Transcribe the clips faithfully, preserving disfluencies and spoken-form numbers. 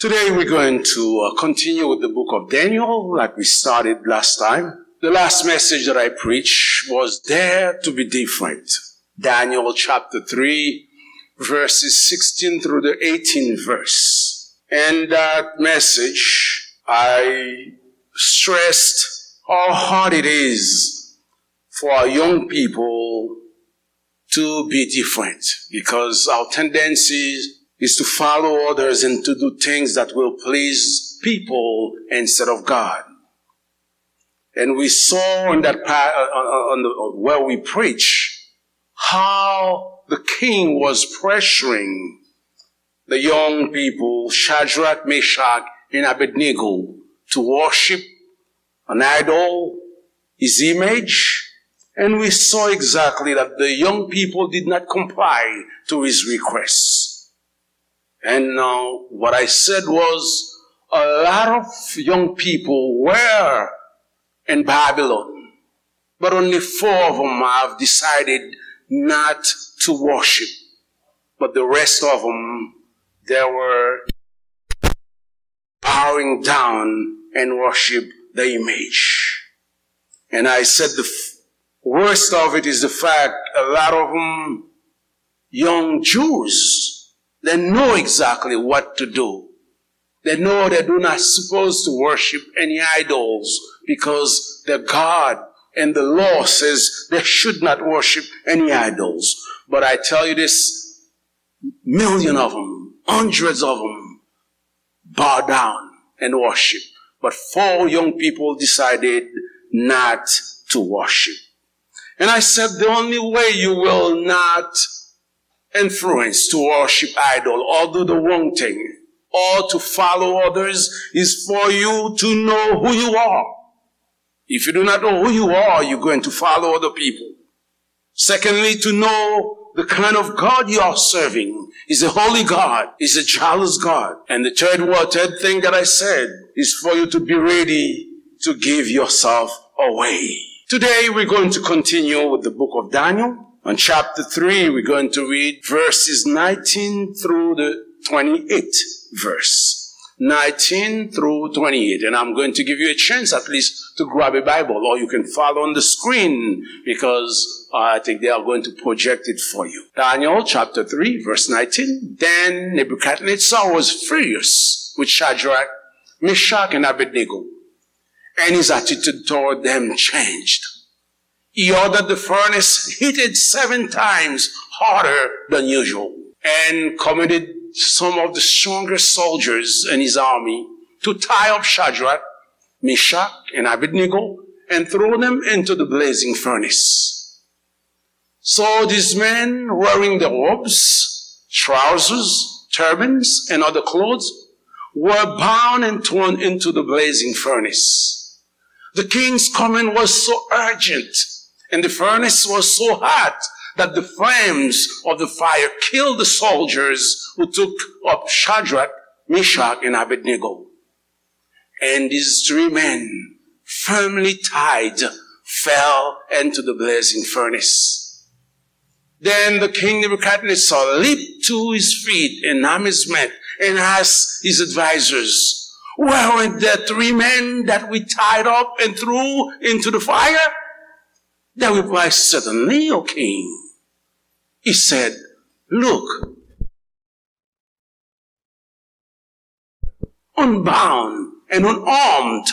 Today we're going to uh, continue with the book of Daniel, like we started last time. The last message that I preached was Dare to Be Different. Daniel chapter three, verses sixteen through the eighteen verse. In that message, I stressed how hard it is for our young people to be different, because our tendency is to follow others and to do things that will please people instead of God. And we saw in that pa- uh, uh, uh, on the, uh, where we preach how the king was pressuring the young people, Shadrach, Meshach, and Abednego, to worship an idol, his image, and we saw exactly that the young people did not comply to his requests. And uh, what I said was a lot of young people were in Babylon, but only four of them have decided not to worship. But the rest of them, they were bowing down and worship the image. And I said the f- worst of it is the fact a lot of them, young Jews, they know exactly what to do. They know they do not supposed to worship any idols because the God and the law says they should not worship any idols. But I tell you this, million of them, hundreds of them bow down and worship. But four young people decided not to worship. And I said, the only way you will not influence to worship idol or do the wrong thing or to follow others is for you to know who you are. If you do not know who you are, you're going to follow other people. Secondly, to know the kind of God you are serving is a holy God, is a jealous God. And the third word, third thing that I said is for you to be ready to give yourself away. Today we're going to continue with the book of Daniel. On chapter three, we're going to read verses nineteen through the twenty-eighth verse. nineteen through twenty-eight. And I'm going to give you a chance at least to grab a Bible, or you can follow on the screen because uh, I think they are going to project it for you. Daniel chapter three, verse nineteen. Then Nebuchadnezzar was furious with Shadrach, Meshach, and Abednego, and his attitude toward them changed. He ordered the furnace heated seven times hotter than usual and commanded some of the strongest soldiers in his army to tie up Shadrach, Meshach, and Abednego and throw them into the blazing furnace. So these men, wearing their robes, trousers, turbans, and other clothes, were bound and thrown into the blazing furnace. The king's command was so urgent, and the furnace was so hot that the flames of the fire killed the soldiers who took up Shadrach, Meshach, and Abednego. And these three men, firmly tied, fell into the blazing furnace. Then the king Nebuchadnezzar leaped to his feet in amazement and asked his advisors, "Weren't there three men that we tied up and threw into the fire?" They replied, "Certainly, O king." He said, "Look, unbound and unarmed,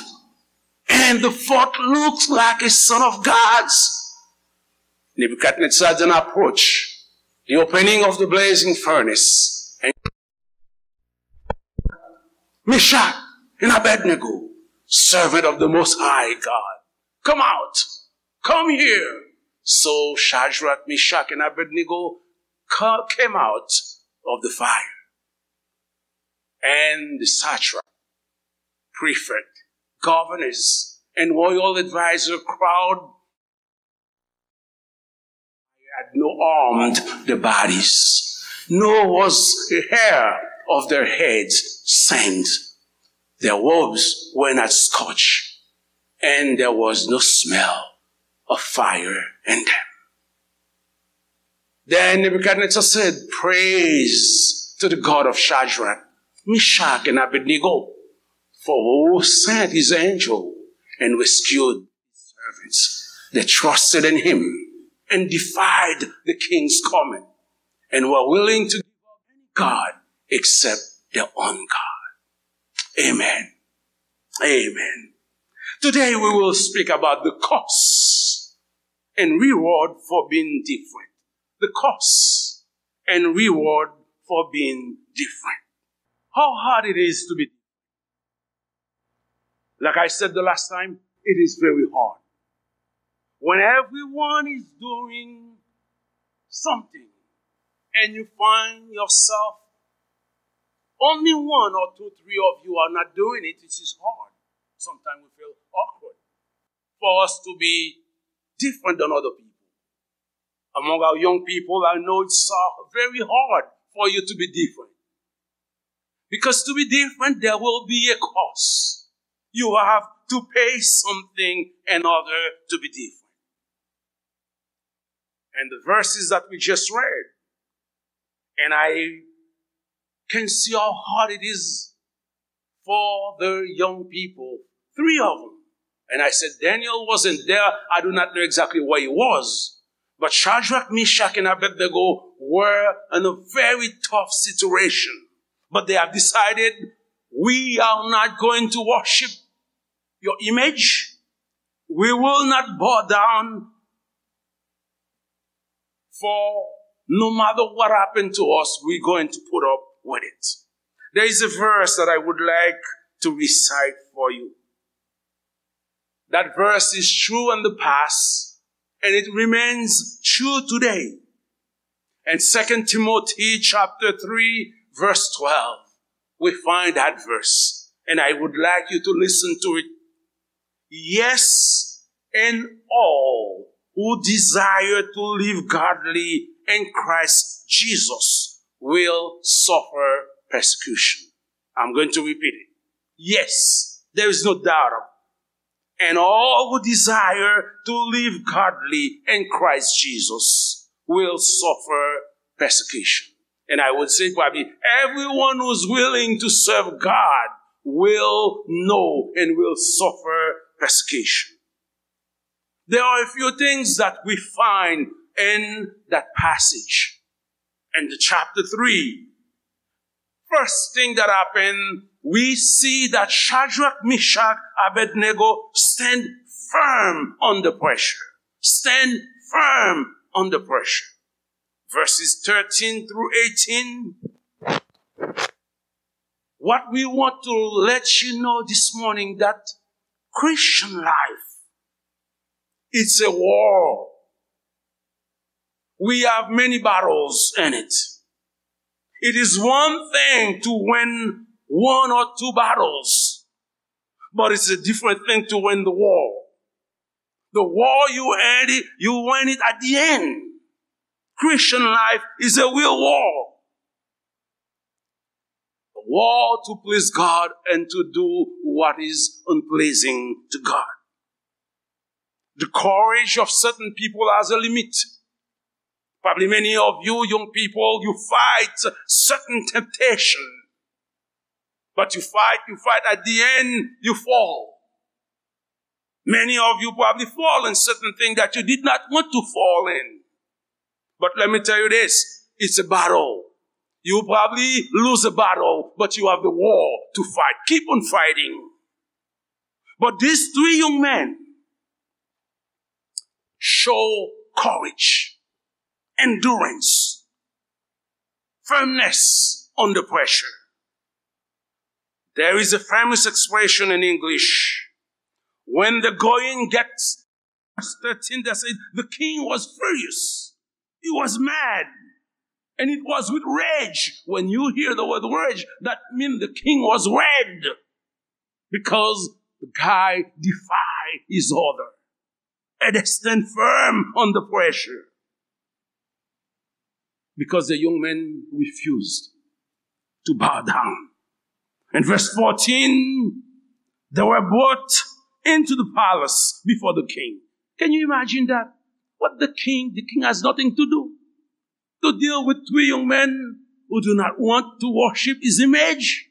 and the fourth looks like a son of God's." Nebuchadnezzar then approached the opening of the blazing furnace and, "Meshach and Abednego, servant of the Most High God, come out, come here." So Shadrach, Meshach, and Abednego ca- came out of the fire. And the satrap, prefect, governors, and royal advisor crowd had not harmed the bodies, nor was a hair of their heads singed. Their robes were not scorched, and there was no smell of fire in them. Then Nebuchadnezzar said, "Praise to the God of Shadrach, Meshach, and Abednego, for who sent his angel and rescued his servants that trusted in him and defied the king's command and were willing to give up any god except their own God. Amen. Amen. Today we will speak about the cost and reward for being different. The cost and reward for being different. How hard it is to be different. Like I said the last time, it is very hard. When everyone is doing something and you find yourself, only one or two, three of you are not doing it, it is hard. Sometimes we feel awkward for us to be different than other people. Among our young people, I know it's uh, very hard for you to be different. Because to be different, there will be a cost. You have to pay something in order to be different. And the verses that we just read, and I can see how hard it is for the young people, three of them. And I said, Daniel wasn't there. I do not know exactly where he was. But Shadrach, Meshach, and Abednego were in a very tough situation. But they have decided, we are not going to worship your image. We will not bow down for no matter what happened to us, we're going to put up with it. There is a verse that I would like to recite for you. That verse is true in the past and it remains true today. In Second Timothy chapter three, verse twelve, we find that verse. And I would like you to listen to it. Yes, and all who desire to live godly in Christ Jesus will suffer persecution. I'm going to repeat it. Yes, there is no doubt about it. And all who desire to live godly in Christ Jesus will suffer persecution. And I would say probably everyone who's willing to serve God will know and will suffer persecution. There are a few things that we find in that passage. In the chapter three, first thing that happened, we see that Shadrach, Meshach, Abednego stand firm under pressure. Stand firm under pressure. Verses thirteen through eighteen. What we want to let you know this morning, that Christian life, it's a war. We have many battles in it. It is one thing to win one or two battles, but it's a different thing to win the war. The war, you earn it, you win it at the end. Christian life is a real war. A war to please God and to do what is unpleasing to God. The courage of certain people has a limit. Probably many of you young people, you fight certain temptation. But you fight, you fight, at the end, you fall. Many of you probably fall in certain things that you did not want to fall in. But let me tell you this, it's a battle. You probably lose a battle, but you have the war to fight. Keep on fighting. But these three young men show courage, endurance, firmness under pressure. There is a famous expression in English. When the going gets, verse thirteen, that says, the king was furious. He was mad. And it was with rage. When you hear the word rage, that means the king was red. Because the guy defied his order. And they stand firm under pressure. Because the young men refused to bow down. In verse fourteen, they were brought into the palace before the king. Can you imagine that? What the king, the king has nothing to do to deal with three young men who do not want to worship his image.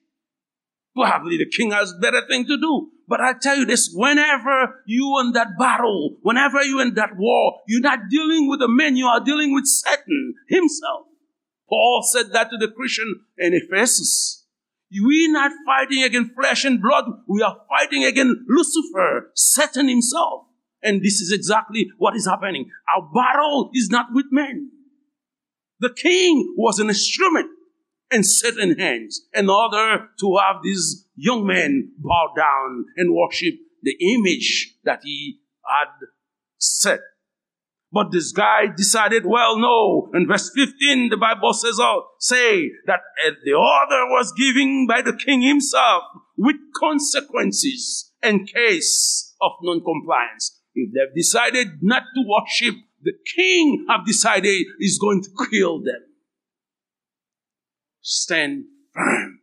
Probably the king has better thing to do. But I tell you this, whenever you in that battle, whenever you in that war, you're not dealing with a man, you are dealing with Satan himself. Paul said that to the Christian in Ephesus. We not fighting against flesh and blood. We are fighting against Lucifer, Satan himself. And this is exactly what is happening. Our battle is not with men. The king was an instrument in Satan's hands in order to have these young men bow down and worship the image that he had set. But this guy decided, well, no. In verse fifteen, the Bible says, oh, say that uh, the order was given by the king himself with consequences in case of non-compliance. If they've decided not to worship, the king have decided is going to kill them. Stand firm.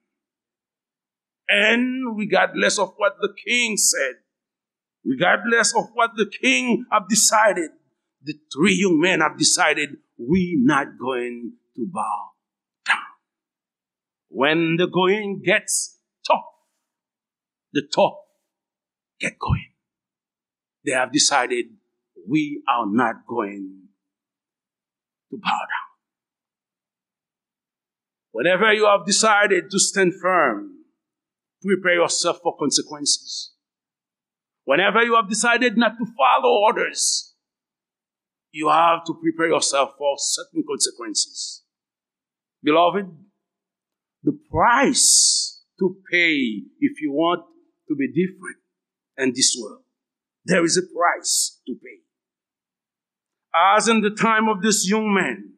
And regardless of what the king said, regardless of what the king have decided, the three young men have decided, we not going to bow down. When the going gets tough, the tough get going. They have decided, we are not going to bow down. Whenever you have decided to stand firm, prepare yourself for consequences. Whenever you have decided not to follow orders, you have to prepare yourself for certain consequences. Beloved, the price to pay if you want to be different in this world, there is a price to pay. As in the time of this young man,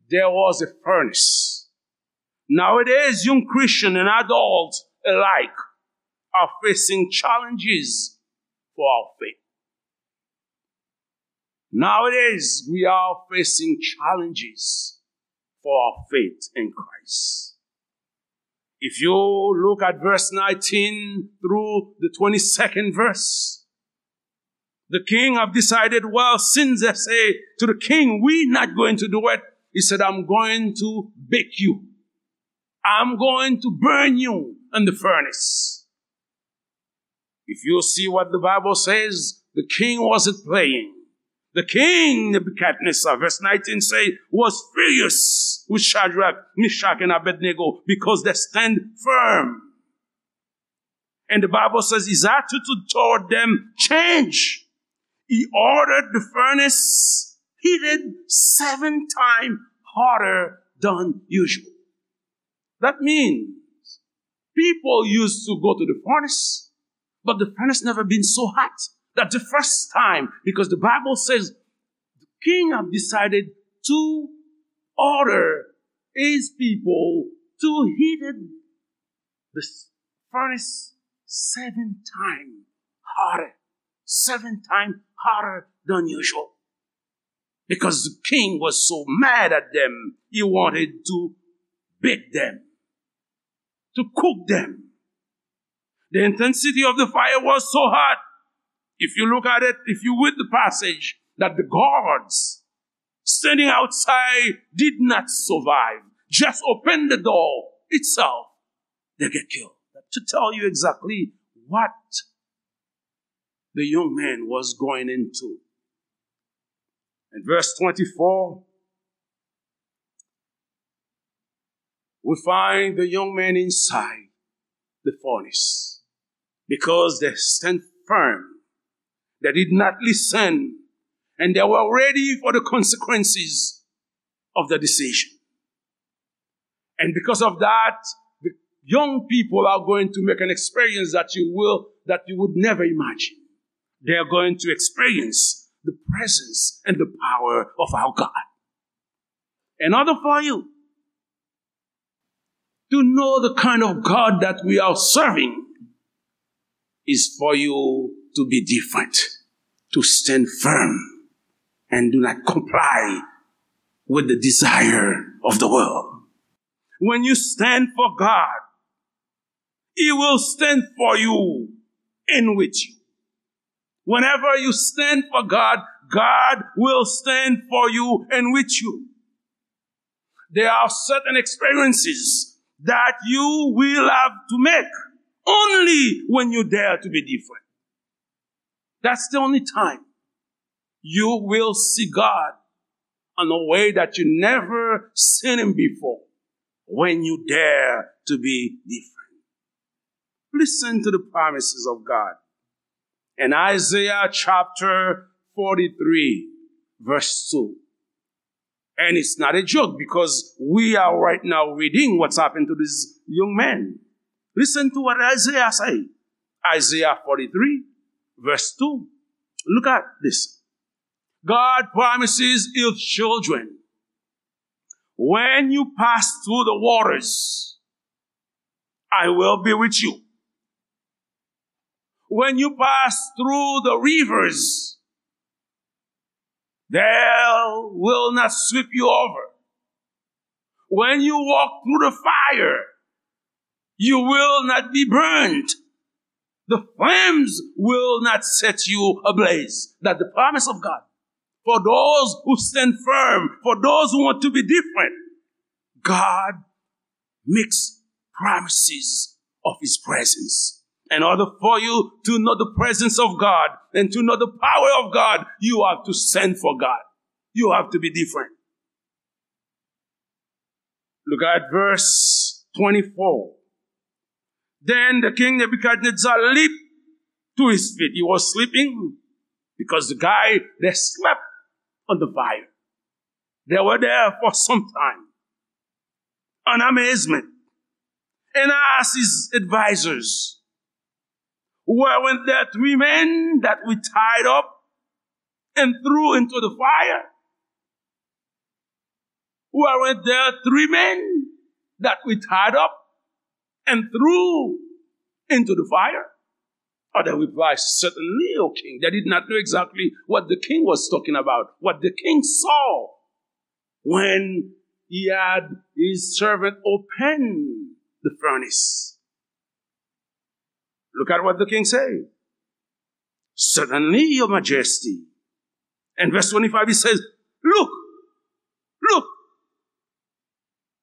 there was a furnace. Nowadays, young Christian and adults alike are facing challenges for our faith. Nowadays, we are facing challenges for our faith in Christ. If you look at verse nineteen through the twenty-second verse, the king have decided, well, since they say to the king, we not going to do it, he said, I'm going to bake you. I'm going to burn you in the furnace. If you see what the Bible says, the king wasn't playing. The king, Nebuchadnezzar, verse nineteen say, was furious with Shadrach, Meshach, and Abednego because they stand firm. And the Bible says his attitude toward them changed. He ordered the furnace heated seven times hotter than usual. That means people used to go to the furnace, but the furnace never been so hot. That's the first time, because the Bible says the king have decided to order his people to heat it, the furnace seven times hotter, seven times hotter than usual. Because the king was so mad at them, he wanted to beat them, to cook them. The intensity of the fire was so hot. If you look at it, if you read the passage, that the guards standing outside did not survive, just open the door itself, they get killed. To tell you exactly what the young man was going into. In verse twenty-four, we find the young man inside the furnace because they stand firm. They did not listen, and they were ready for the consequences of the decision. And because of that, the young people are going to make an experience that you will, that you would never imagine. They are going to experience the presence and the power of our God. In order for you to know the kind of God that we are serving, is for you to be different, to stand firm, and do not comply with the desire of the world. When you stand for God, He will stand for you and with you. Whenever you stand for God, God will stand for you and with you. There are certain experiences that you will have to make only when you dare to be different. That's the only time you will see God in a way that you never seen him before, when you dare to be different. Listen to the promises of God. In Isaiah chapter forty-three, verse two. And it's not a joke because we are right now reading what's happened to this young man. Listen to what Isaiah say. Isaiah forty-three, verse two. Look at this. God promises his children, "When you pass through the waters, I will be with you. When you pass through the rivers, they will not sweep you over. When you walk through the fire, you will not be burned. The flames will not set you ablaze." That's the promise of God. For those who stand firm, for those who want to be different, God makes promises of his presence. In order for you to know the presence of God and to know the power of God, you have to stand for God. You have to be different. Look at verse twenty-four. Then the king Nebuchadnezzar leaped to his feet. He was sleeping because the guy, they slept on the fire. They were there for some time. An amazement. And asked his advisors, "Weren't there three men that we tied up and threw into the fire? Weren't there three men that we tied up and threw into the fire?" Or they replied, "Certainly, O king." They did not know exactly what the king was talking about. What the king saw when he had his servant open the furnace. Look at what the king said. "Certainly, your majesty." And verse twenty-five, he says, "Look, look,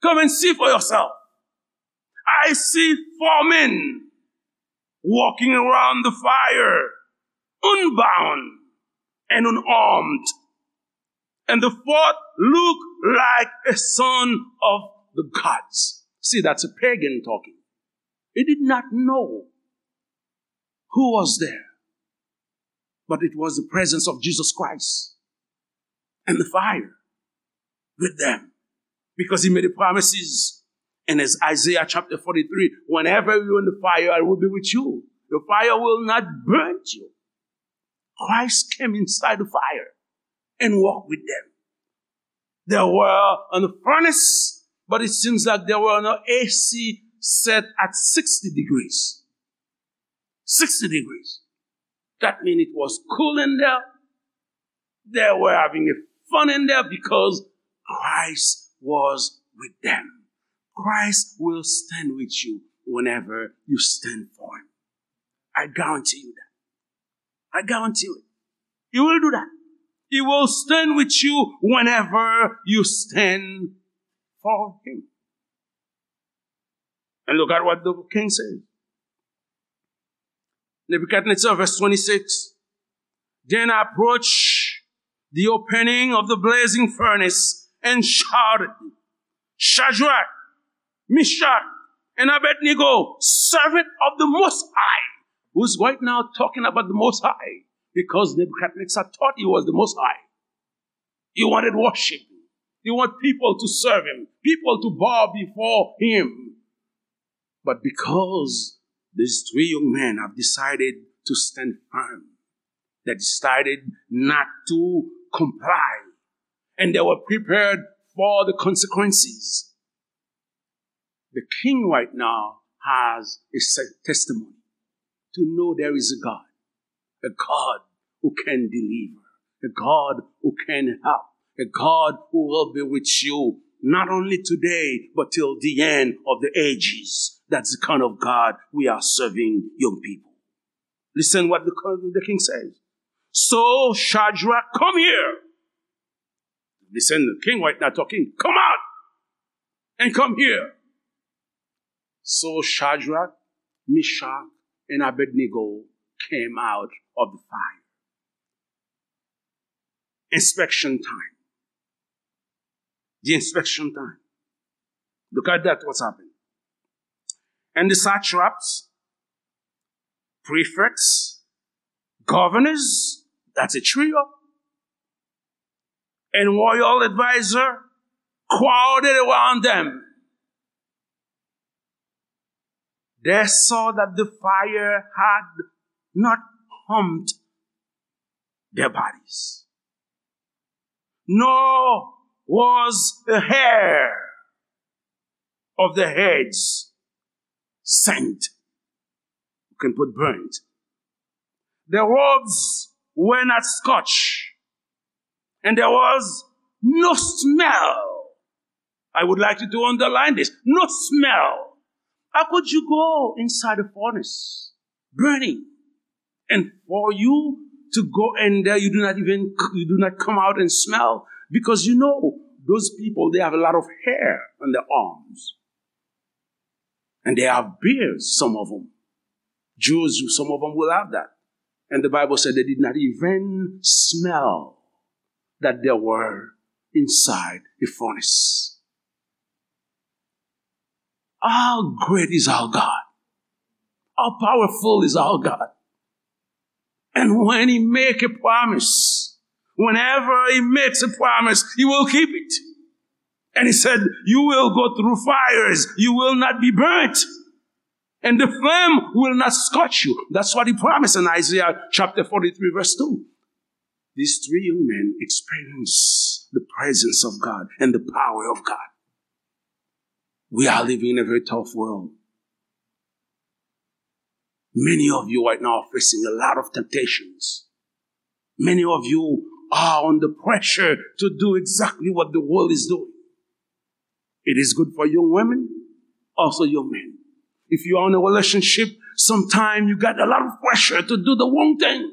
come and see for yourself. I see four men walking around the fire, unbound and unarmed. And the fourth looked like a son of the gods." See, that's a pagan talking. He did not know who was there, but it was the presence of Jesus Christ and the fire with them, because he made the promises. And as Isaiah chapter forty-three, "Whenever you're in the fire, I will be with you. The fire will not burn you." Christ came inside the fire and walked with them. They were on the furnace, but it seems like they were on an A C set at sixty degrees. Sixty degrees. That means it was cool in there. They were having a fun in there because Christ was with them. Christ will stand with you whenever you stand for him. I guarantee you that. I guarantee you it. He will do that. He will stand with you whenever you stand for him. And look at what the king says. Nebuchadnezzar, verse twenty-six. Then I approached the opening of the blazing furnace and shouted, "Shadrach, Meshach, and Abednego, servant of the Most High," who's right now talking about the Most High, because Nebuchadnezzar thought he was the Most High. He wanted worship. He wanted people to serve him, people to bow before him. But because these three young men have decided to stand firm, they decided not to comply, and they were prepared for the consequences. The king right now has a se-, testimony to know there is a God, a God who can deliver, a God who can help, a God who will be with you, not only today, but till the end of the ages. That's the kind of God we are serving, young people. Listen what the, the king says. "So, Shadrach, come here." Listen, the king right now talking. "Come out and come here." So Shadrach, Meshach, and Abednego came out of the fire. Inspection time. The inspection time. Look at that, what's happening. And the satraps, prefects, governors, that's a trio, and royal advisor crowded around them. They saw that the fire had not harmed their bodies, nor was a hair of their heads singed. You can put burnt. Their robes were not scorched, and there was no smell. I would like you to underline this. No smell. How could you go inside a furnace burning? And for you to go in there, you do not even, you do not come out and smell, because you know those people, they have a lot of hair on their arms. And they have beards, some of them. Jews, some of them will have that. And the Bible said they did not even smell that they were inside a furnace. How great is our God! How powerful is our God! And when he make a promise, whenever he makes a promise, he will keep it. And he said, "You will go through fires, you will not be burnt, and the flame will not scorch you." That's what he promised in Isaiah chapter forty-three, verse two. These three young men experienced the presence of God and the power of God. We are living in a very tough world. Many of you right now are facing a lot of temptations. Many of you are under pressure to do exactly what the world is doing. It is good for young women, also young men. If you are in a relationship, sometimes you got a lot of pressure to do the wrong thing,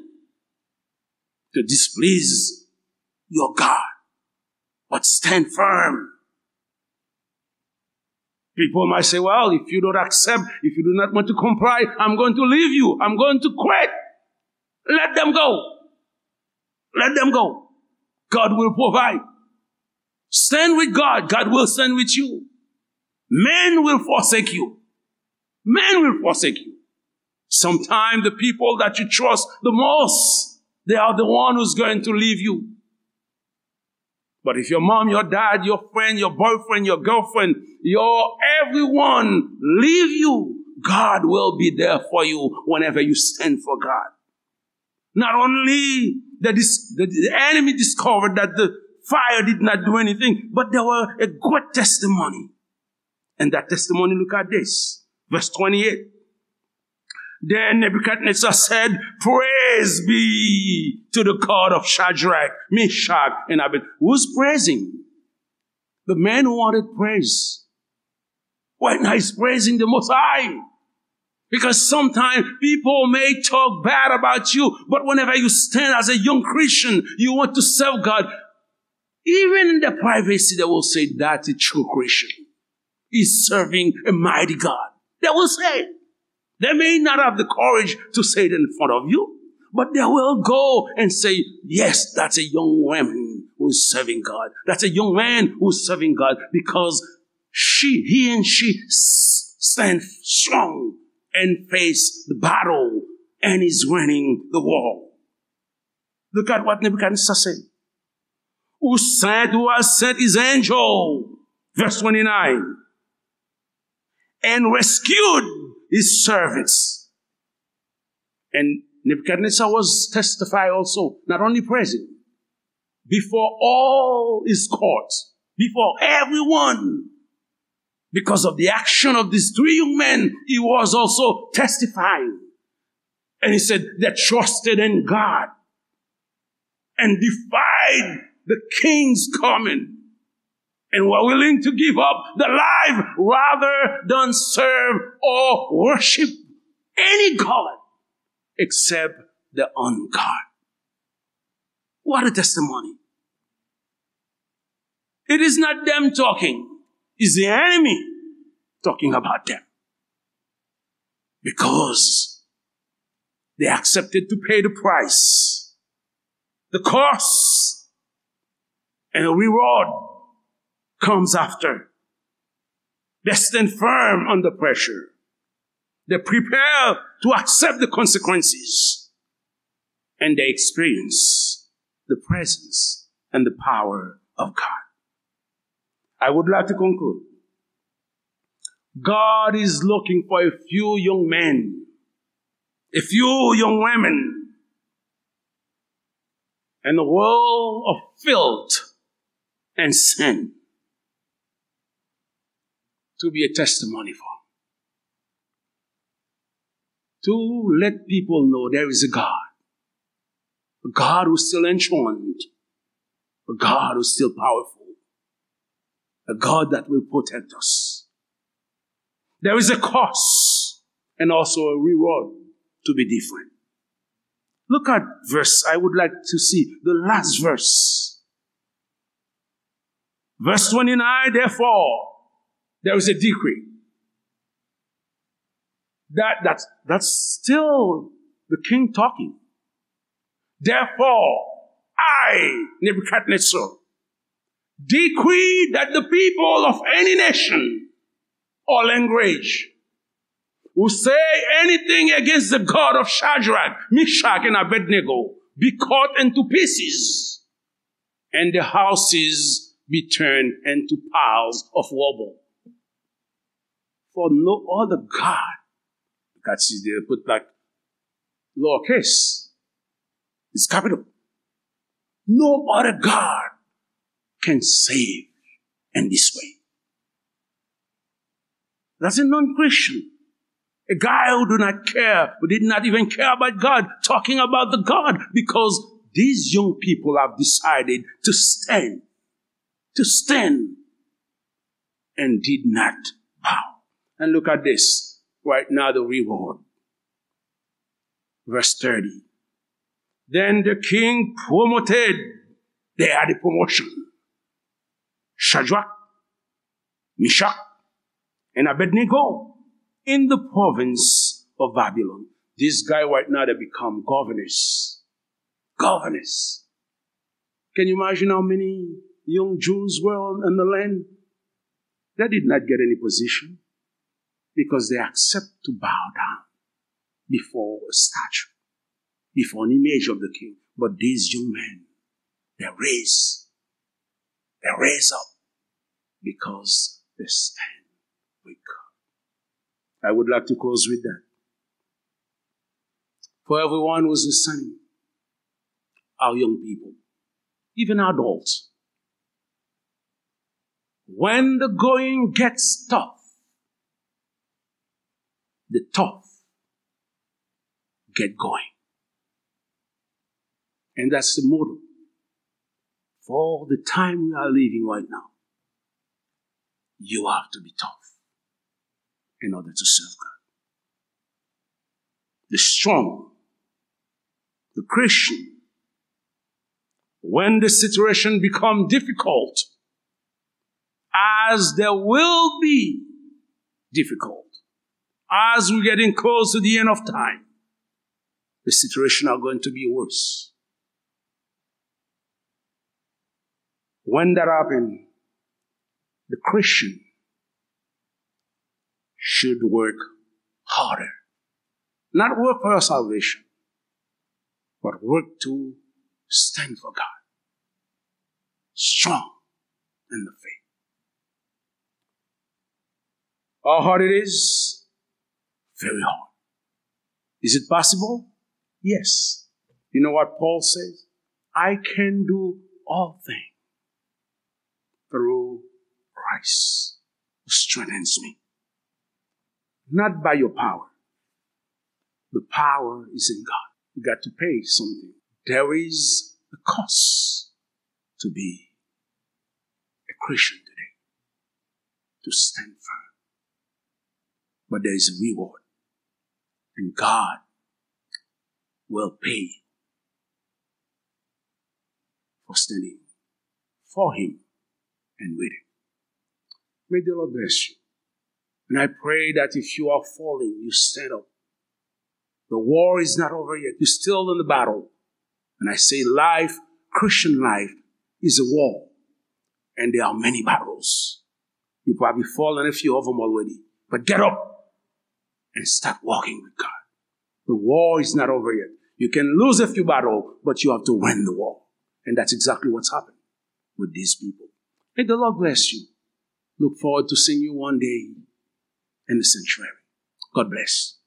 to displease your God. But stand firm. People might say, "Well, if you don't accept, if you do not want to comply, I'm going to leave you. I'm going to quit." Let them go. Let them go. God will provide. Stand with God. God will stand with you. Men will forsake you. Men will forsake you. Sometimes the people that you trust the most, they are the one who's going to leave you. But if your mom, your dad, your friend, your boyfriend, your girlfriend, your everyone leave you, God will be there for you whenever you stand for God. Not only the, dis- the, the enemy discovered that the fire did not do anything, but there were a great testimony. And that testimony, look at this. Verse twenty-eight. Then Nebuchadnezzar said, "Praise be to the God of Shadrach, Meshach, and Abednego." Who's praising? The man who wanted praise. Right now he's praising the Most High. Because sometimes people may talk bad about you, but whenever you stand as a young Christian, you want to serve God. Even in the privacy, they will say, "That's a true Christian. He's serving a mighty God." They will say it. They may not have the courage to say it in front of you, but they will go and say, "Yes, that's a young woman who is serving God. That's a young man who is serving God," because she, he and she s- stand strong and face the battle and is winning the war. Look at what Nebuchadnezzar said. "Who sent, who has sent his angel," verse twenty-nine, "and rescued his servants." And Nebuchadnezzar was testify also, not only present, before all his courts, before everyone, because of the action of these three young men, he was also testifying. And he said, "They trusted in God and defied the king's command and were willing to give up their life rather than serve or worship any god except the one God." What a testimony. It is not them talking. It's the enemy talking about them. Because they accepted to pay the price, the cost, and the reward comes after. They stand firm under pressure. They prepare to accept the consequences. And they experience the presence and the power of God. I would like to conclude. God is looking for a few young men, a few young women in a world of filth and sin to be a testimony for, to let people know there is a God, a God who's still enthroned, a God who's still powerful, a God that will protect us. There is a cost and also a reward to be different. Look at verse, I would like to see the last verse. Verse twenty-nine, therefore, there is a decree. That, that's, that's still the king talking. Therefore, I, Nebuchadnezzar, decree that the people of any nation or language who say anything against the God of Shadrach, Meshach, and Abednego be cut into pieces, and the houses be turned into piles of rubble. For no other God, God see they put like lowercase, it's capital. No other God can save in this way. That's a non-Christian. A guy who do not care, who did not even care about God, talking about the God, because these young people have decided to stand, to stand, and did not bow. And look at this, right now the reward. Verse thirty. Then the king promoted, they had a promotion. Shadrach, Meshach, and Abednego in the province of Babylon. This guy right now, they become governors. Governors. Can you imagine how many young Jews were on, in the land? They did not get any position because they accept to bow down before a statue, before an image of the king. But these young men, they raise, they raise up because they stand with God. I would like to close with that. For everyone who's listening, our young people, even adults, when the going gets tough, the tough get going. And that's the motto for the time we are living right now. You have to be tough in order to serve God. The strong, the Christian, when the situation become difficult, as there will be difficult, as we're getting close to the end of time, the situation are going to be worse. When that happen, the Christian should work harder. Not work for your salvation, but work to stand for God. Strong in the faith. How hard it is? Very hard. Is it possible? Yes. You know what Paul says? I can do all things through Christ who strengthens me. Not by your power. The power is in God. You got to pay something. There is a cost to be a Christian today, to stand firm. But there is a reward, and God will pay for standing for Him and with Him. May the Lord bless you. And I pray that if you are falling, you stand up The war is not over yet. You're still in the battle. And I say life, Christian life, is a war. And there are many battles. You probably fallen a few of them already. But get up and start walking with God. The war is not over yet. You can lose a few battles, but you have to win the war. And that's exactly what's happened with these people. May the Lord bless you. Look forward to seeing you one day in the sanctuary. God bless.